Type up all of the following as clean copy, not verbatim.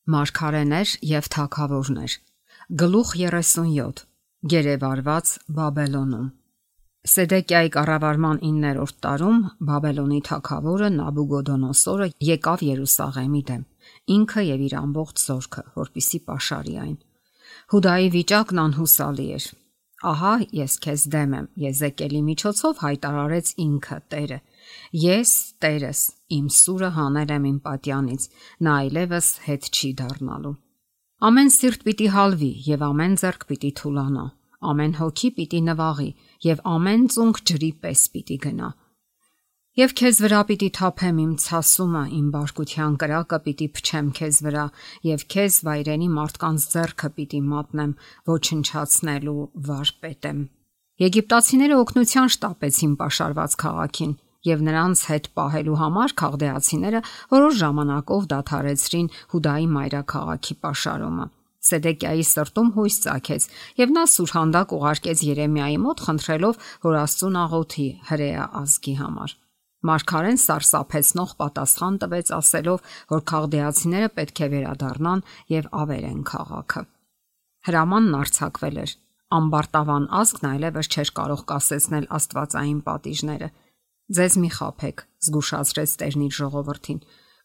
Մարգարեներ եւ թագավորներ։ Գլուխ 37։ Գերեվարված Բաբելոնում։ Սեդեկիայի կառավարման 9-րդ տարում Բաբելոնի թագավորը Նաբուգոդոնոսորը եկավ Երուսաղեմի դեմ, ինքը եւ իր ամբողջ զորքը, որպիսի պաշարի այն։ Հուդայի վիճակն անհուսալի էր։ Ահա ես քեզ դեմ եմ, Եզեկիելի միջոցով հայտարարեց ինքը Տերը։ Ես Տերս, իմ սուրը հանել եմ իմ պատյանից, նա այլևս հետ չի դառնալու։ Ամեն սիրտ պիտի հալվի եւ ամեն ձեռք պիտի թուլանա, ամեն հոգի պիտի նվաղի եւ ամեն ծունկ ջրի պես պիտի գնա։ Եվ քեզ վրա պիտի թափեմ իմ ցասումը, իմ բարկության կրակը պիտի փչեմ քեզ վրա եւ քեզ վայրենի մարդկանց ձեռքը պիտի մատնեմ, ոչնչացնելու վարպետ եմ։ Եգիպտացիները օգնության շտապեցին պաշարված քաղաքին եւ նրանց հետ պահելու համար քաղդեացիները որոշ ժամանակով դադարեցրին Հուդայի մայրաքաղաքի պաշարումը։ Սեդեկիայի սրտում հույս ծագեց եւ նա սուրհանդակ ուղարկեց Երեմիայի մոտ խնդրելով, որ Աստծուն աղոթի հրեա ազգի համար։ Մարգարեն սարսափեցնող պատասխան տվեց ասելով, որ քաղդեացիները պետք է վերադառնան եւ ավերեն քաղաքը։ Հրամանն արձակվել էր։ Ամբարտավան ազգն այլևս չէր կարող կասեցնել աստվածային պատիժները։ Ձեզ մի խաբեք, զգուշացրեց Տերն իր ժողովրդին։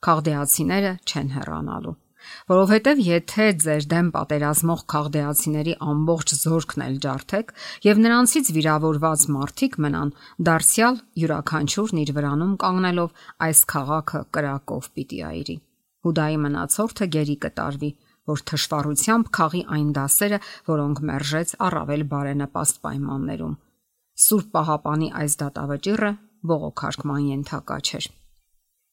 Քաղդեացիները չեն հեռանալու, որովհետև եթե ձեր դեմ պատերազմող քաղդեացիների ամբողջ զորքն էլ ջարդեք եւ նրանցից վիրավորված մարդիկ մնան, դարձյալ յուրաքանչյուրն իր վրանում կանգնելով այս քաղաքը կրակով պիտի այրի։ Հուդայի մնացորդը գերի կտարվի, որ թշվառությամբ քաղի այն դասերը, որոնք մերժեց առավել բարենպաստ պայմաններում։ Սուրբ Պահապանի այս դատավճիռը բողոքարկման ենթակա չէր։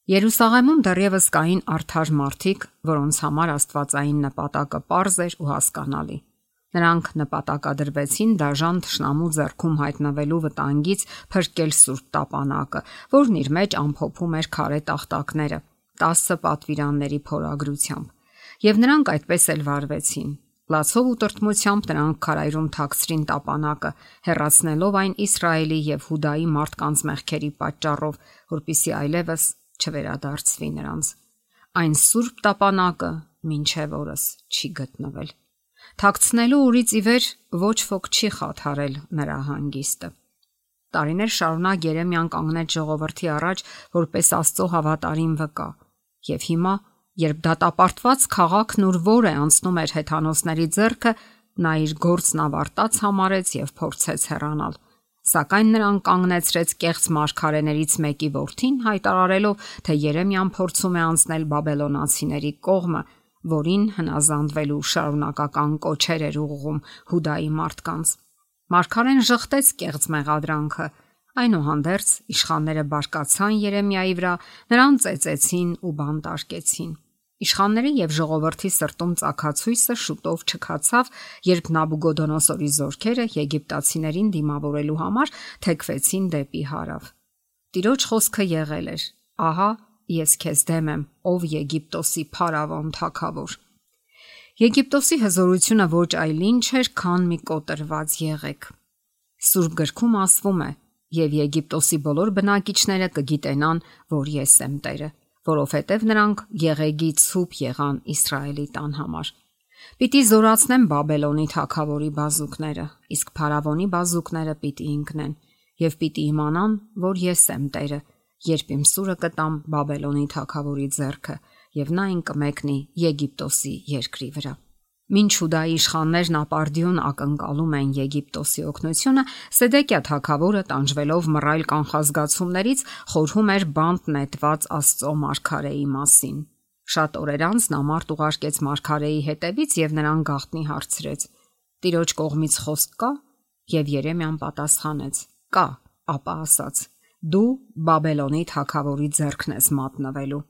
Երուսաղեմում դեռևս կային արդար մարդիկ, որոնց համար աստվածային նպատակը պարզ էր ու հասկանալի։ Նրանք նպատակադրվեցին դաժան թշնամու ձեռքում հայտնվելու վտանգից փրկել Սուրբ Տապանակը, որն իր մեջ ամփոփում էր քարե տախտակները 10 պատվիրանների փորագրությամբ, եւ նրանք այդպես էլ վարվեցին։ Լացով ու տրտմությամբ նրանք քարայրում թաքցրին տապանակը, հեռացնելով այն Իսրայելի եւ Հուդայի մարդկանց մեղքերի պատճառով, որpիսի այլևս չվերադարձվի նրանց։ Այն սուրբ տապանակը մինչև օրս չի գտնվել։ Թաքցնելու օրից ի վեր ոչ ոք չի խաթարել նրա հանգիստը։ Տարիներ շարունակ Երեմիան կանգնեց ժողովրդի առաջ որպես Աստծո հավատարիմ վկա, եւ հիմա երբ դատապարտված քաղաքն ուր որ է անցնում էր հեթանոսների ձեռքը, նա իր գործն ավարտած համարեց եւ փորձեց հեռանալ։ Սակայն նրան կանգնեցրեց կեղծ մարգարեներից մեկի որդին, հայտարարելով, թե Երեմիան փորձում է անցնել բաբելոնացիների կողմը, որին հնազանդվելու շարունակական կոչեր էր ուղղում Հուդայի մարդկանց։ Մարգարեն ժխտեց կեղծ մեղադրանքը։ Այնուհանդերձ իշխանները բարկացան Երեմիայի վրա, նրան ծեծեցին ու բանտարկեցին։ Իշխանների եւ ժողովրդի սրտում ծագացույցը շուտով չքացավ, երբ Նաբուգոդոնոսորի զորքերը եգիպտացիներին դիմավորելու համար թեքվեցին դեպի հարավ։ Տիրոջ խոսքը եղել էր. «Ահա ես քեզ դեմ եմ, ով Եգիպտոսի փարավոն թագավոր»։ Եգիպտոսի հզորությունը ոչ այլ ինչ էր, քան մի կոտրված եղեք։ Սուրբ գրքում ասվում է. «Եվ Եգիպտոսի բոլոր բնակիչները կգիտենան, որ ես եմ Տերը, որովհետև նրանք եղեգի ցուպ եղան Իսրայելի տան համար»։ Պիտի զորացնեմ Բաբելոնի թագավորի բազուկները, իսկ փարավոնի բազուկները պիտի ընկնեն, եւ պիտի իմանան, որ ես եմ Տերը, երբ իմ սուրը կտամ Բաբելոնի թագավորի ձեռքը, եւ նա այն կմեկնի Եգիպտոսի երկրի վրա։ Մինչ Հուդայի իշխաններն ապարդյուն ակնկալում են Եգիպտոսի օգնությունը, Սեդեկիա թագավորը տանջվելով մռայլ կանխազգացումներից խորհում էր բանտ նետված Աստծո մարգարեի մասին։ Շատ օրեր անց նա մարդ ուղարկեց մարգարեի հետևից եւ նրան գաղտնի հարցրեց. «Տիրոջ կողմից խոսք կա»։ Եվ Երեմիան պատասխանեց. «Կա», ապա ասաց. «Դու Բաբելոնի թագավորի ձեռքն ես մատնվելու»։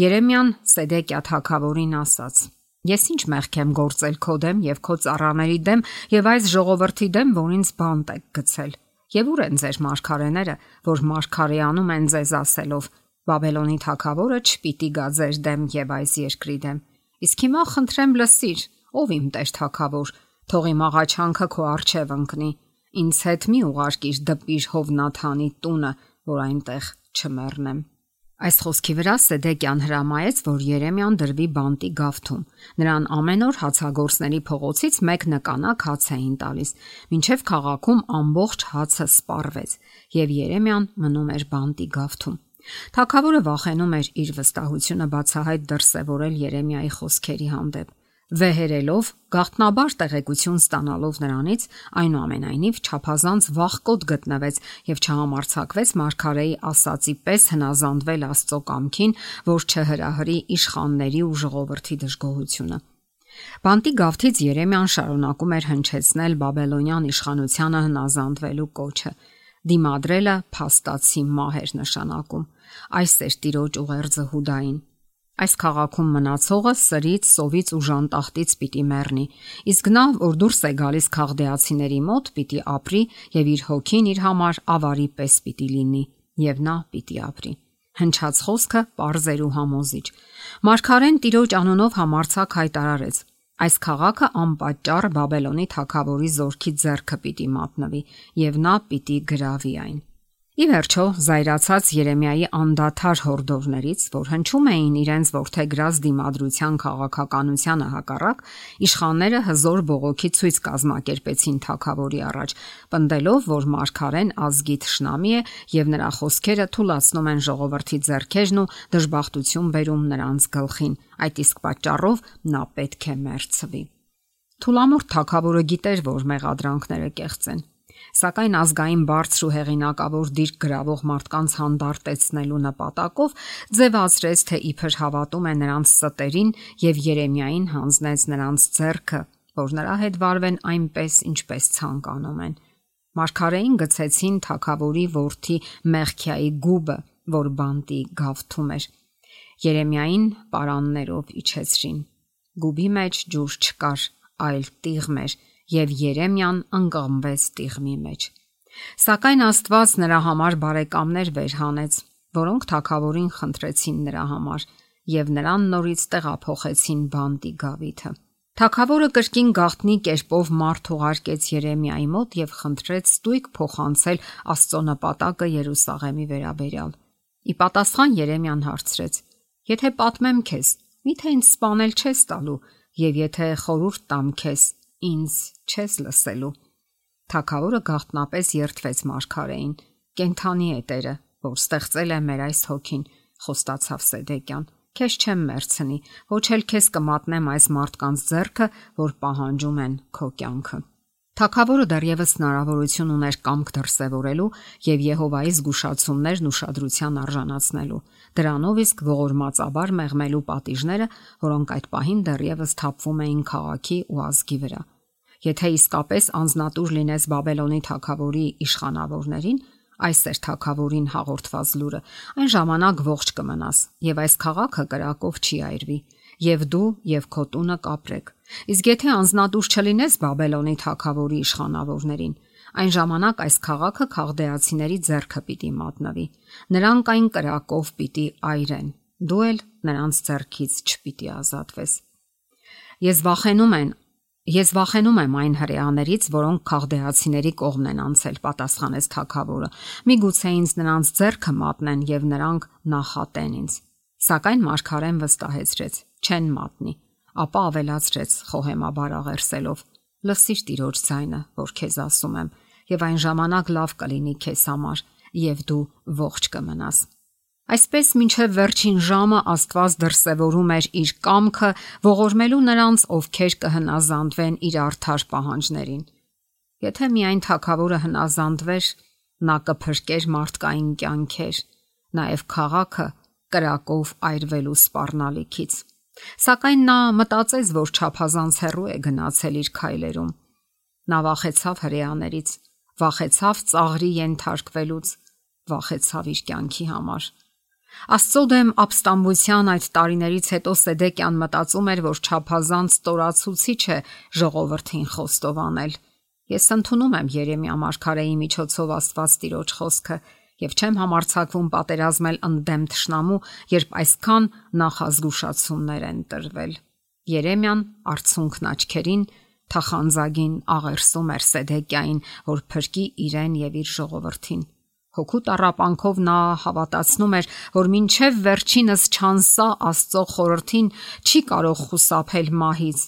Երեմիան Սեդեկիա թագավորին ասաց. «Ես ինչ մեղք եմ գործել քո դեմ եւ քո ծառաների դեմ եւ այս ժողովրդի դեմ, որ ինձ բանտ եք գցել։ Եվ ուր են ձեր մարգարեները, որ մարգարեանում են ձեզ ասելով. Բաբելոնի թագավորը չպիտի գա ձեր դեմ եւ այս երկրի դեմ։ Իսկ հիմա խնդրեմ լսիր, ով իմ տեր թագավոր, թող իմ աղաչանքը քո առջև ընկնի։ Ինձ հետ մի ուղարկիր դպիր Հովնաթանի տունը, որ այնտեղ չմեռնեմ»։ Այս խոսքի վրա Սեդեկյան հրամայեց, որ Երեմիան դրվի բանտի գավթում։ Նրան ամեն օր հացագործների փողոցից մեկ նկանակ հաց էին տալիս, մինչև քաղաքում ամբողջ հացը սպառվեց, եւ Երեմիան մնում էր բանտի գավթում։ Թագավորը վախենում էր իր վստահությունը բացահայտ դրսևորել Երեմիայի խոսքերի հանդեպ։ Վեհերելով, գաղտնաբար տեղեկություն ստանալով նրանից, այնուամենայնիվ չափազանց վախկոտ գտնվեց եւ չհամարձակվեց մարգարեի ասացի պես հնազանդվել Աստծո կամքին, որ չհրահրի իշխանների ու ժողովրդի դժգոհությունը։ Բանտի գավթից Երեմիան շարունակում էր հնչեցնել բաբելոնյան իշխանությանը հնազանդվելու կոչը։ Դիմադրելը փաստացի մահ էր նշանակում։ Այս էր տիրոջ ուղերձը Հուդային։ Այս քաղաքում մնացողը սրից, սովից ու ժանտախտից պիտի մեռնի, իսկ նա, որ դուրս է գալիս քաղդեացիների մոտ, պիտի ապրի եւ իր հոգին իր համար ավարի պես պիտի լինի, եւ նա պիտի ապրի։ Հնչած խոսքը պարզ էր ու համոզիչ։ Մարգարեն տիրոջ անունով համարձակ հայտարարեց. այս քաղաքը անպատճառ Բաբելոնի թագավորի զորքի ձեռքը պիտի մատնվի, եւ նա պիտի գրավի այն։ Ի վերջո, զայրացած Երեմիայի անդադար հորդորներից, որ հնչում էին իրենց որդեգրած դիմադրության քաղաքականությանը հակառակ, իշխանները հզոր բողոքի ցույց կազմակերպեցին թագավորի առաջ, պնդելով, որ մարգարեն ազգի թշնամի է եւ նրա խոսքերը թուլացնում են ժողովրդի ձեռքերն ու դժբախտություն բերում նրանց գլխին, այդ իսկ պատճառով նա պետք է մեռցվի։ Թուլամորթ թագավորը գիտեր, որ մեղադրանքները կեղծ են։ Սակայն ազգային բարձր ու հեղինակավոր դիրք գրավող մարդկանց հանդարտեցնելու նպատակով ձևացրեց, թե իբր հավատում է նրանց ստերին եւ Երեմիային հանձնեց նրանց ձեռքը, որ նրա հետ վարվեն այնպես, ինչպես ցանկանում են։ Մարգարեին գցեցին թագավորի որդի Մեխքիայի գուբը, որ բանտի գավթում էր։ Երեմիային պարաններով իջեցրին։ Գուբի մեջ ջուր չկար, այլ տիղմ էր, եւ Երեմիան ընկղմվեց տիղմի մեջ։ Սակայն Աստված նրա համար բարեկամներ վեր հանեց, որոնք թագավորին խնդրեցին նրա համար եւ նրան նորից տեղափոխեցին բանտի գավիթը։ Թագավորը կրկին գաղտնի կերպով մարդ ուղարկեց Երեմիայի մոտ եւ խնդրեց ստույգ փոխանցել Աստծո նպատակը Երուսաղեմի վերաբերյալ։ Ի պատասխան Երեմիան հարցրեց. Եթե պատմեմ քեզ, միթե ինձ սպանել չես տալու, եւ եթե խորհուրդ տամ քեզ, ինձ չես լսելու։ Թագավորը գաղտնապես երդվեց մարգարեին. Կենթանի է Տերը, որ ստեղծել է մեր այս հոգին, խոստացավ Սեդեկյան։ Քեզ չեմ մերցնի, ոչ էլ քեզ կմատնեմ այս մարդկանց ձեռքը, որ պահանջում են քո կյանքը։ Թագավորը դեռևս հնարավորություն ուներ կամք դրսևորելու եւ Եհովայի զգուշացումներն ուշադրության արժանացնելու։ Դրանով իսկ ողորմածաբար մեղմելու պատիժները, որոնք այդ պահին դեռևս թափվում էին քաղաքի ու ազգի վրա։ Եթե իսկապես անznատուր լինես Բաբելոնի թագավորի իշխանավորներին, այս էր թագավորին հաղորդված լուրը, այն ժամանակ ողջ կմնաս եւ այս քաղաքը կրակով չի այրվի, եւ դու եւ քո տունը կապրեք։ Իսկ եթե անznատուր չլինես Բաբելոնի թագավորի իշխանավորներին, այն ժամանակ այս քաղաքը քաղդեացիների ձեռքը պիտի մատնվի։ Նրանք այն կրակով պիտի այրեն, դու էլ նրանց ձեռքից չպիտի ազատվես։ Ես վախենում եմ այն հրեաներից, որոնք քաղդեացիների կողմն են անցել, պատասխանեց թագավորը։ Միգուցե ինձ նրանց ձեռքը մատնեն եւ նրանք նախատեն ինձ։ Սակայն մարգարեն վստահեցրեց. չեն մատնի, ապա ավելացրեց խոհեմաբար աղերսելով. լսիր Տիրոջ ձայնը, որ քեզ ասում եմ, եւ այն ժամանակ լավ կլինի քեզ համար, եւ դու ողջ կմնաս։ Այսպես մինչև վերջին ժամը Աստված դրսևորում էր իր կամքը ողորմելու նրանց, ովքեր կհնազանդվեն իր արդար պահանջներին։ Եթե միայն թագավորը հնազանդվեր, նա կփրկեր մարդկային կյանքեր, նաև քաղաքը կրակով այրվելու սպառնալիքից։ Սակայն նա մտածեց, որ չափազանց հեռու է գնացել իր քայլերում։ Նա վախեցավ հրեաներից, վախեցավ ծաղրի ենթարկվելուց, վախեցավ իր կյանքի համար։ Աստծո դեմ ապստամբության այդ տարիներից հետո Սեդեկյան մտածում էր, որ չափազանց ստորացուցիչ է ժողովրդին խոստովանել։ Ես ընդունում եմ Երեմիա մարգարեի միջոցով Աստված Տիրոջ խոսքը եւ չեմ համարձակվում պատերազմել ընդդեմ թշնամու, երբ այսքան նախազգուշացումներ են տրվել։ Երեմիան արցունքն աչքերին թախանձագին աղերսում էր Սեդեկյային, որ փրկի իրեն եւ իր ժողովրդին։ Հոգու տառապանքով նա հավատացնում էր, որ մինչև վերջինս չանսա Աստծո խորհրդին չի կարող խուսափել մահից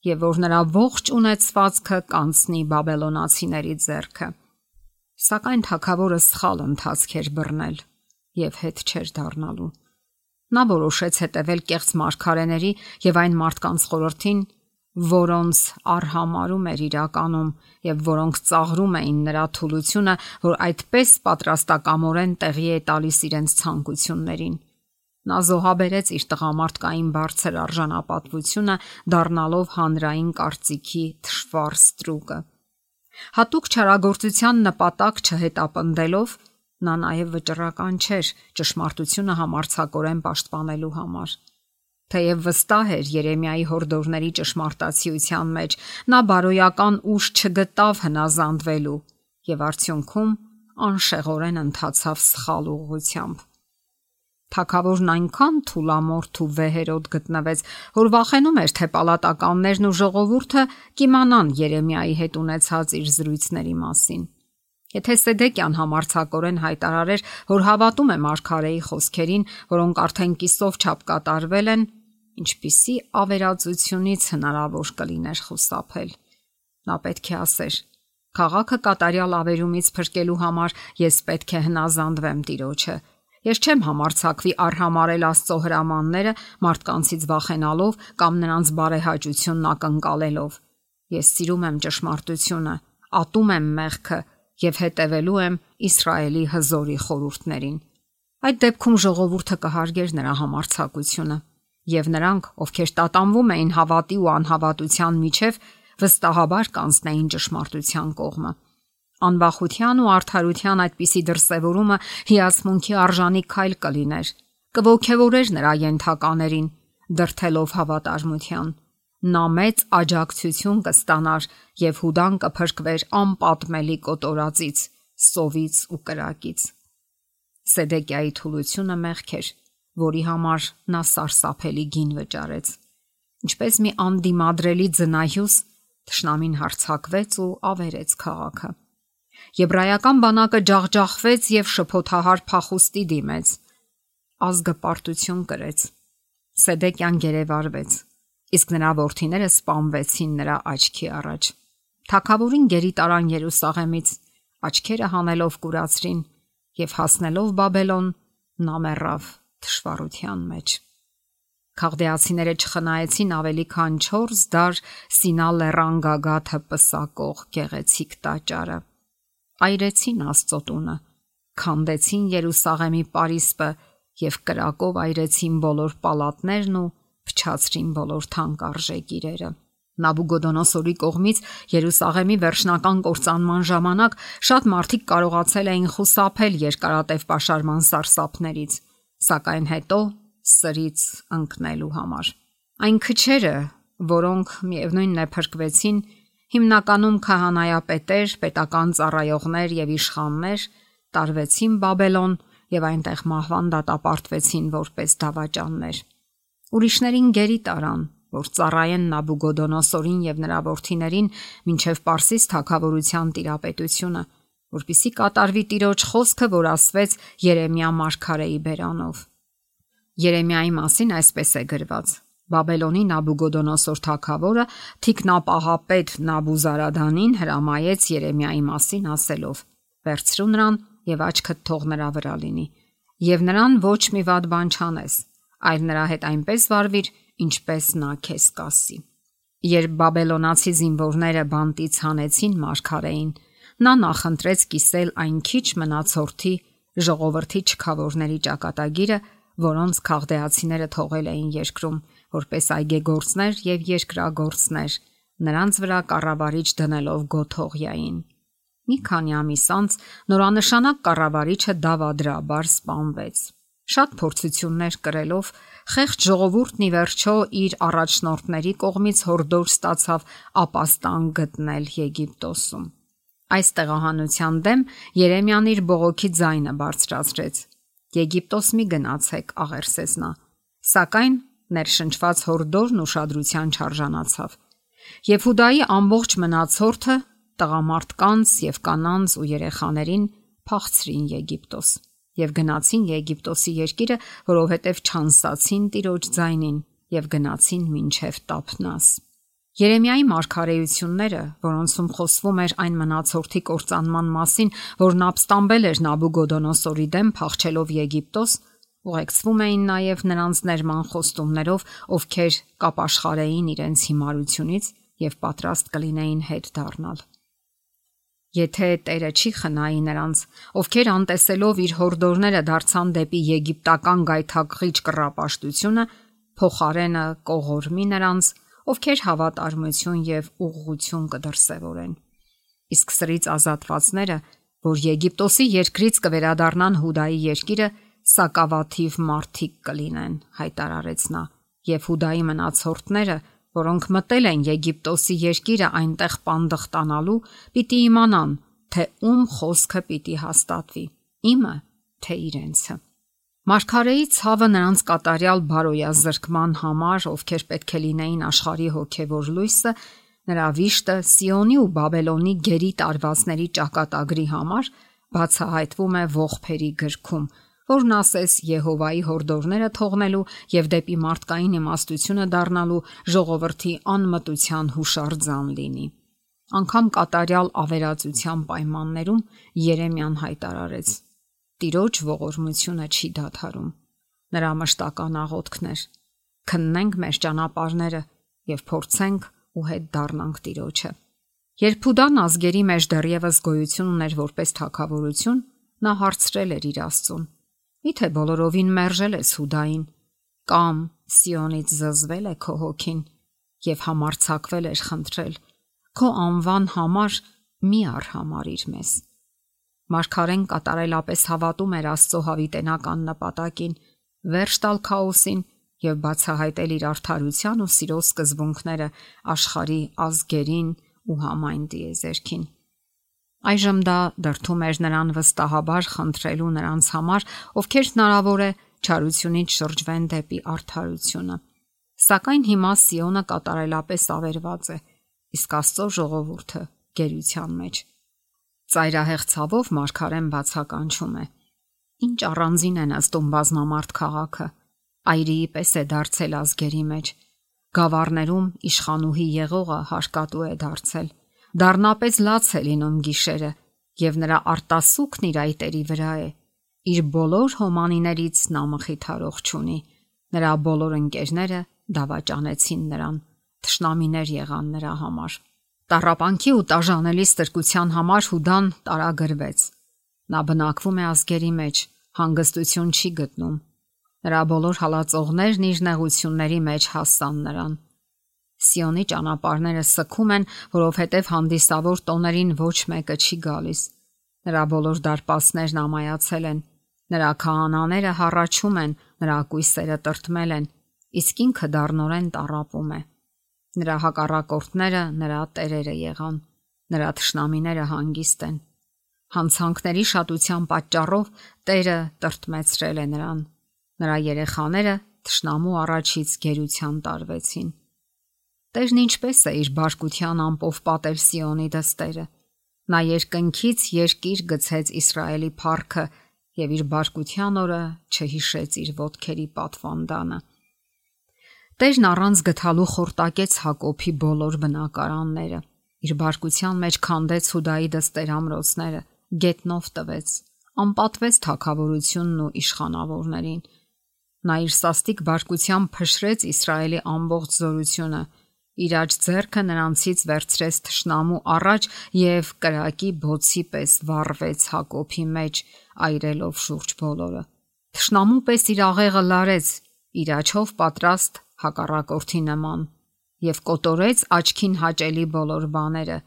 եւ որ նրա ողջ ունեցվածքը կանցնի բաբելոնացիների ձեռքը։ Սակայն թագավորը սխալ ընթացք էր բռնել եւ հետ չէր դառնալու։ Նա որոշեց հետևել կեղծ մարգարեների եւ այն մարդկանց խորհրդին, որոնց արհամարում էր իրականում եւ որոնք ծաղրում էին նրա թուլությունը, որ այդպես պատրաստակամորեն տեղի է տալիս իրենց ցանկություններին։ Նա զոհաբերեց իր տղամարդկային բարձր արժանապատվությունը, դառնալով հանրային կարծիքի թշվառ ստրուկը։ Հատուկ չարագործության նպատակ չհետապնդելով նա նաև վճռական չէր ճշմարտությունը համարձակորեն պաշտպանելու համար։ Թեև վստահ էր Երեմիայի հորդորների ճշմարտացիության մեջ, նա բարոյական ուժ չգտավ հնազանդվելու եւ արդյունքում անշեղորեն ընթացավ սխալ ուղղությամբ։ Թագավորն այնքան թուլամորթ ու վեհերոտ գտնվեց, որ վախենում էր, թե պալատականներն ու ժողովուրդը կիմանան Երեմիայի հետ ունեցած իր զրույցների մասին։ Եթե Սեդեկյան համարձակորեն հայտարարեր, որ հավատում է մարգարեի խոսքերին, որոնք արդեն կիսով չափ կատարվել են, ինչպիսի ավերածությունից հնարավոր կլիներ խուսափել։ Նա պետք է ասեր. «Քաղաքը կատարյալ ավերումից փրկելու համար ես պետք է հնազանդվեմ Տիրոջը։ Ես չեմ համարձակվի արհամարել Աստծո հրամանները մարդկանցից վախենալով կամ նրանց բարեհաճությունն ակնկալելով։ Ես սիրում եմ ճշմարտությունը, ատում եմ մեղքը եւ հետևելու եմ Իսրայելի հզորի խորհուրդներին»։ Այդ դեպքում ժողովուրդը կհարգեր նրա համարձակությունը, եւ նրանք, ովքեր տատանվում էին հավատի ու անհավատության միջև, վստահաբար կանցնեին ճշմարտության կողմը։ Անվախության ու արդարության այդպիսի դրսևորումը հիացմունքի արժանի քայլ կլիներ, կողքեվորեր նրա ենթականերին, դրթելով հավատարմության։ Նա մեծ աջակցություն կստանար եւ Հուդան կփրկվեր անպատմելի կոտորածից, սովից ու կրակից։ Սեդեկիայի թուլությունը մեղք էր, որի համար նա սարսափելի գին վճարեց։ Ինչպես մի անդիմադրելի ձնայյուս, թշնամին հարձակվեց ու ավերեց քաղաքը։ Եբրայական բանակը ջախջախվեց եւ շփոթահար փախուստի դիմեց։ Ազգը պարտություն կրեց։ Սեդեկյան գերեվարվեց, իսկ նրա որդիները սպանվեցին նրա աչքի առաջ։ Թագավորին գերի տարան Երուսաղեմից, աչքերը հանելով կուրացրին եւ հասնելով Բաբելոն, նա մեռավ թշվառության մեջ։ Քաղդեացիները չխնայեցին ավելի քան 4 դար Սինա լեռան գագաթը պսակող գեղեցիկ տաճարը։ Այրեցին Աստծո տունը, քանդեցին Երուսաղեմի պարիսպը եւ կրակով այրեցին բոլոր պալատներն ու փչացրին բոլոր թանկարժեք իրերը։ Նաբուգոդոնոսորի կողմից Երուսաղեմի վերջնական կործանման ժամանակ շատ մարդիկ կարողացել էին խուսափել երկարատև պաշարման սարսափներից, սակայն հետո սրից ընկնելու համար։ Այն քչերը, որոնք միևնույնն է փրկվեցին, հիմնականում քահանայապետեր, պետական ծառայողներ եւ իշխաններ, տարվեցին Բաբելոն եւ այնտեղ մահվան դատապարտվեցին որպես դավաճաններ։ Ուրիշներին գերի տարան, որ ծառայեն Նաբուգոդոնոսորին եւ նրա որդիներին մինչեւ Պարսից թագավորության տիրապետությունը, որպիսի կատարվի Տիրոջ խոսքը, որ ասվեց Երեմիա մարգարեի բերանով։ Երեմիայի մասին այսպես է գրված. Բաբելոնի Նաբուգոդոնոսոր թագավորը թիկնապահապետ Նաբուզարադանին հրամայեց Երեմիայի մասին ասելով. «Վերցրու նրան եւ աչքդ թող նրա վրա լինի, եւ նրան ոչ մի վատ բան չանես, այլ նրա հետ այնպես վարվիր, ինչպես նա քեզ կասի»։ Երբ բաբելոնացի զինվորները բանտից հանեցին մարգարեին, նա նախընտրեց կիսել այն քիչ մնացորդի ժողովրդի չքավորների ճակատագիրը, որոնց քաղդեացիները թողել էին երկրում, որպես այգեգործներ եւ երկրագործներ, նրանց վրա կառավարիչ դնելով Գոթողյային։ Մի քանի ամիս անց նորանշանակ կառավարիչը դավադրաբար սպանվեց։ Շատ փորձություններ կրելով խեղճ ժողովուրդն ի վերջո իր առաջնորդների կողմից հորդոր ստացավ ապաստան գտնել Եգիպտոսում։ Այս տեղահանության դեմ Երեմիան իր բողոքի ձայնը բարձրացրեց. «Եգիպտոս մի գնացեք», աղերսեց նա, սակայն ներշնչված հորդորն ուշադրության չարժանացավ։ Եվ Հուդայի ամբողջ մնացորդը, տղամարդկանց եւ կանանց ու երեխաներին փախցրին Եգիպտոս եւ գնացին Եգիպտոսի երկիրը, որովհետեւ չանսացին Տիրոջ ձայնին եւ գնացին մինչեւ Տափնաս։ Երեմիայի մարգարեությունները, որոնցում խոսվում էր այն մնացորդի կործանման մասին, որն ապստամբել էր Նաբուգոդոնոսորի դեմ փախչելով Եգիպտոս, ուղեկցվում էին նաև նրանց ներման խոստումներով, ովքեր կապաշխարեին իրենց հիմարությունից եւ պատրաստ կլինեին հետ դառնալ։ Եթե Տերը չի խնայի նրանց, ովքեր անտեսելով իր հորդորները դարձան դեպի եգիպտական գայթակղիչ կռապաշտությունը, փոխարենը կողորմի նրանց, ովքեր հավատարմություն եւ ուղղություն կդրսևորեն։ Իսկ սրից ազատվածները, որ Եգիպտոսի երկրից կվերադառնան Հուդայի երկիրը, սակավաթիվ մարդիկ կլինեն, հայտարարեց նա, եւ Հուդայի մնացորդները, որոնք մտել են Եգիպտոսի երկիրը այնտեղ պանդխտանալու, պիտի իմանան, թե ում խոսքը պիտի հաստատվի, իմը, թե իրենցը։ Մարգարեի ցավը նրանց կատարյալ բարոյազրկման համար, ովքեր պետք է լինեին աշխարհի հոգևոր լույսը, նրա վիշտը Սիոնի ու Բաբելոնի գերի տարվածների ճակատագրի համար բացահայտվում է ողբերի գրքում, որն ասես Եհովայի հորդորները թողնելու եւ դեպի մարդկային իմաստությունը դառնալու ժողովրդի անմտության հուշարձան լինի։ Անկամ կատարյալ ավերածության պայմաններում Երեմիան հայտարարեց. Տիրոջ ողորմությունը չի դադարում։ Նրա մշտական աղոթքն էր. քննենք մեր ճանապարհները եւ փորձենք ու հետ դառնանք Տիրոջը։ Երբ Հուդան ազգերի մեջ դեռևս գոյություն ուներ որպես թագավորություն, նա հարցրել էր իր Աստծուն. Միթե բոլորովին մերժել ես Հուդային, կամ Սիոնից զզվել է քո հոգին եւ համարձակվել էր խնդրել. քո անվան համար մի արհամարիր մեզ։ Մարգարեն կատարելապես հավատում էր Աստծո հավիտենական նպատակին, վերջ տալ քաոսին եւ բացահայտել իր արդարության ու սիրո սկզբունքները աշխարհի ազգերին ու համայն դիեզերքին։ Այժմ դա դրդում էր նրան վստահաբար խնդրելու նրանց համար, ովքեր հնարավոր է չարությունից շրջվեն դեպի արդարությունը։ Սակայն հիմա Սիոնը կատարելապես ավերված է, իսկ Աստծո ժողովուրդը գերության մեջ։ Ծայրահեղ ցավով մարգարեն բացականչում է. Ինչ առանձին է նստում բազմամարդ քաղաքը, այրիի պես է դարձել ազգերի մեջ, գավառներում իշխանուհի եղողը հարկատու է դարձել, դառնապես լաց է լինում գիշերը, եւ նրա արտասուքն իր այտերի վրա է, իր բոլոր հոմանիներից նա մխիթարող չունի, նրա բոլոր ընկերները դավաճանեցին նրան, թշնամիներ եղան նրա համար։ Տառապանքի ու տաժանելի ստրկության համար Հուդան տարագրվեց։ Նա բնակվում է ազգերի մեջ, հանգստություն չի գտնում։ Նրա բոլոր հալածողներն իր նեղությունների մեջ հասան նրան։ Սիոնի ճանապարհները սքում են, որովհետև հանդիսավոր տոներին ոչ մեկը չի գալիս։ Նրա բոլոր դարպասներն ամայացել են, նրա քահանաները հառաչում են, նրա կույսերը տրտմել են, իսկ ինքը դառնորեն տառապում է։ Նրա հակառակորդները նրա տերերը եղան, նրա թշնամիները հանգիստ են։ Հանցանքների շատության պատճառով Տերը տրտմեցրել է նրան։ Նրա երեխաները թշնամու առաջից գերության տարվեցին։ Տերն ինչպես է իր բարկության ամպով պատել Սիոնի դստերը։ Նա երկնքից երկիր գցեց Իսրայելի փառքը եւ իր բարկության օրը չհիշեց իր ոտքերի պատվանդանը։ Տերն առանց գթալու խորտակեց Հակոբի բոլոր բնակարանները։ Իր բարկության մեջ քանդեց Հուդայի դստեր ամրոցները, գետնով տվեց, անպատվեց թագավորությունն ու իշխանավորներին։ Նա իր սաստիկ բարկությամբ փշրեց Իսրայելի ամբողջ զորությունը, իր աջ ձեռքը նրանցից վերցրեց թշնամու առաջ եւ կրակի բոցի պես վառվեց Հակոբի մեջ, այրելով շուրջ բոլորը։ Թշնամու պես իր աղեղը լարեց, իր աչով պատրաստ հակառակորդի նման, եւ կոտորեց աչքին հաճելի բոլոր բաները,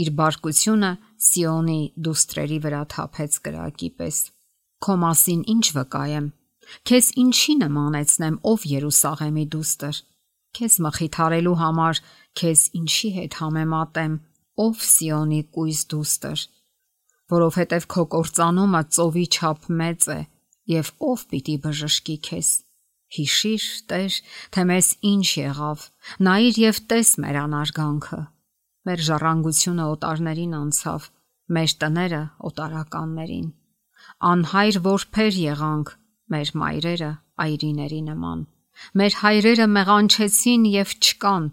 իր բարկությունը Սիոնի դուստրերի վրա թափեց կրակի պես։ Քո մասին ինչ վկայեմ, քեզ ինչի նմանեցնեմ, ով Երուսաղեմի դուստր, քեզ մխիթարելու համար քեզ ինչի հետ համեմատեմ, ով Սիոնի կույս դուստր, որովհետև քո կործանումը ծովի չափ մեծ է, եւ ով պիտի բժշկի քեզ։ Հիշիր, Տեր, թե մեզ ինչ եղավ, նայիր եւ տես մեր անարգանքը։ Մեր ժառանգությունը օտարներին անցավ, մեր տները օտարականներին։ Անհայր որբեր եղանք մեր մայրերը այրիների նման։ Մեր հայրերը մեղանչեցին եւ չկան,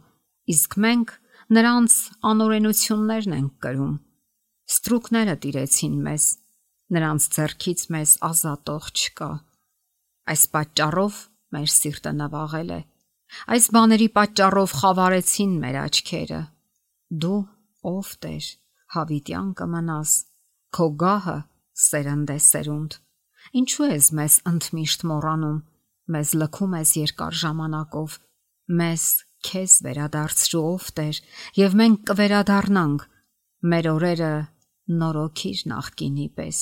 իսկ մենք նրանց անօրենություններն ենք կրում։ Ստրուկները տիրեցին մեզ, նրանց ձեռքից մեզ ազատող չկա։ Այս պատճառով մեր սիրտը նվաղել է։ Այս բաների պատճառով խավարեցին մեր աչքերը։ Դու, ով Տեր, հավիտյան կմնաս, քո գահը սերնդեսերունդ։ Ինչու ես մեզ ընդմիշտ մոռանում, մեզ լքում ես երկար ժամանակով, մեզ քեզ վերադարձրու, ով Տեր, եւ մենք կվերադառնանք, մեր օրերը նորոգիր նախկինի պես։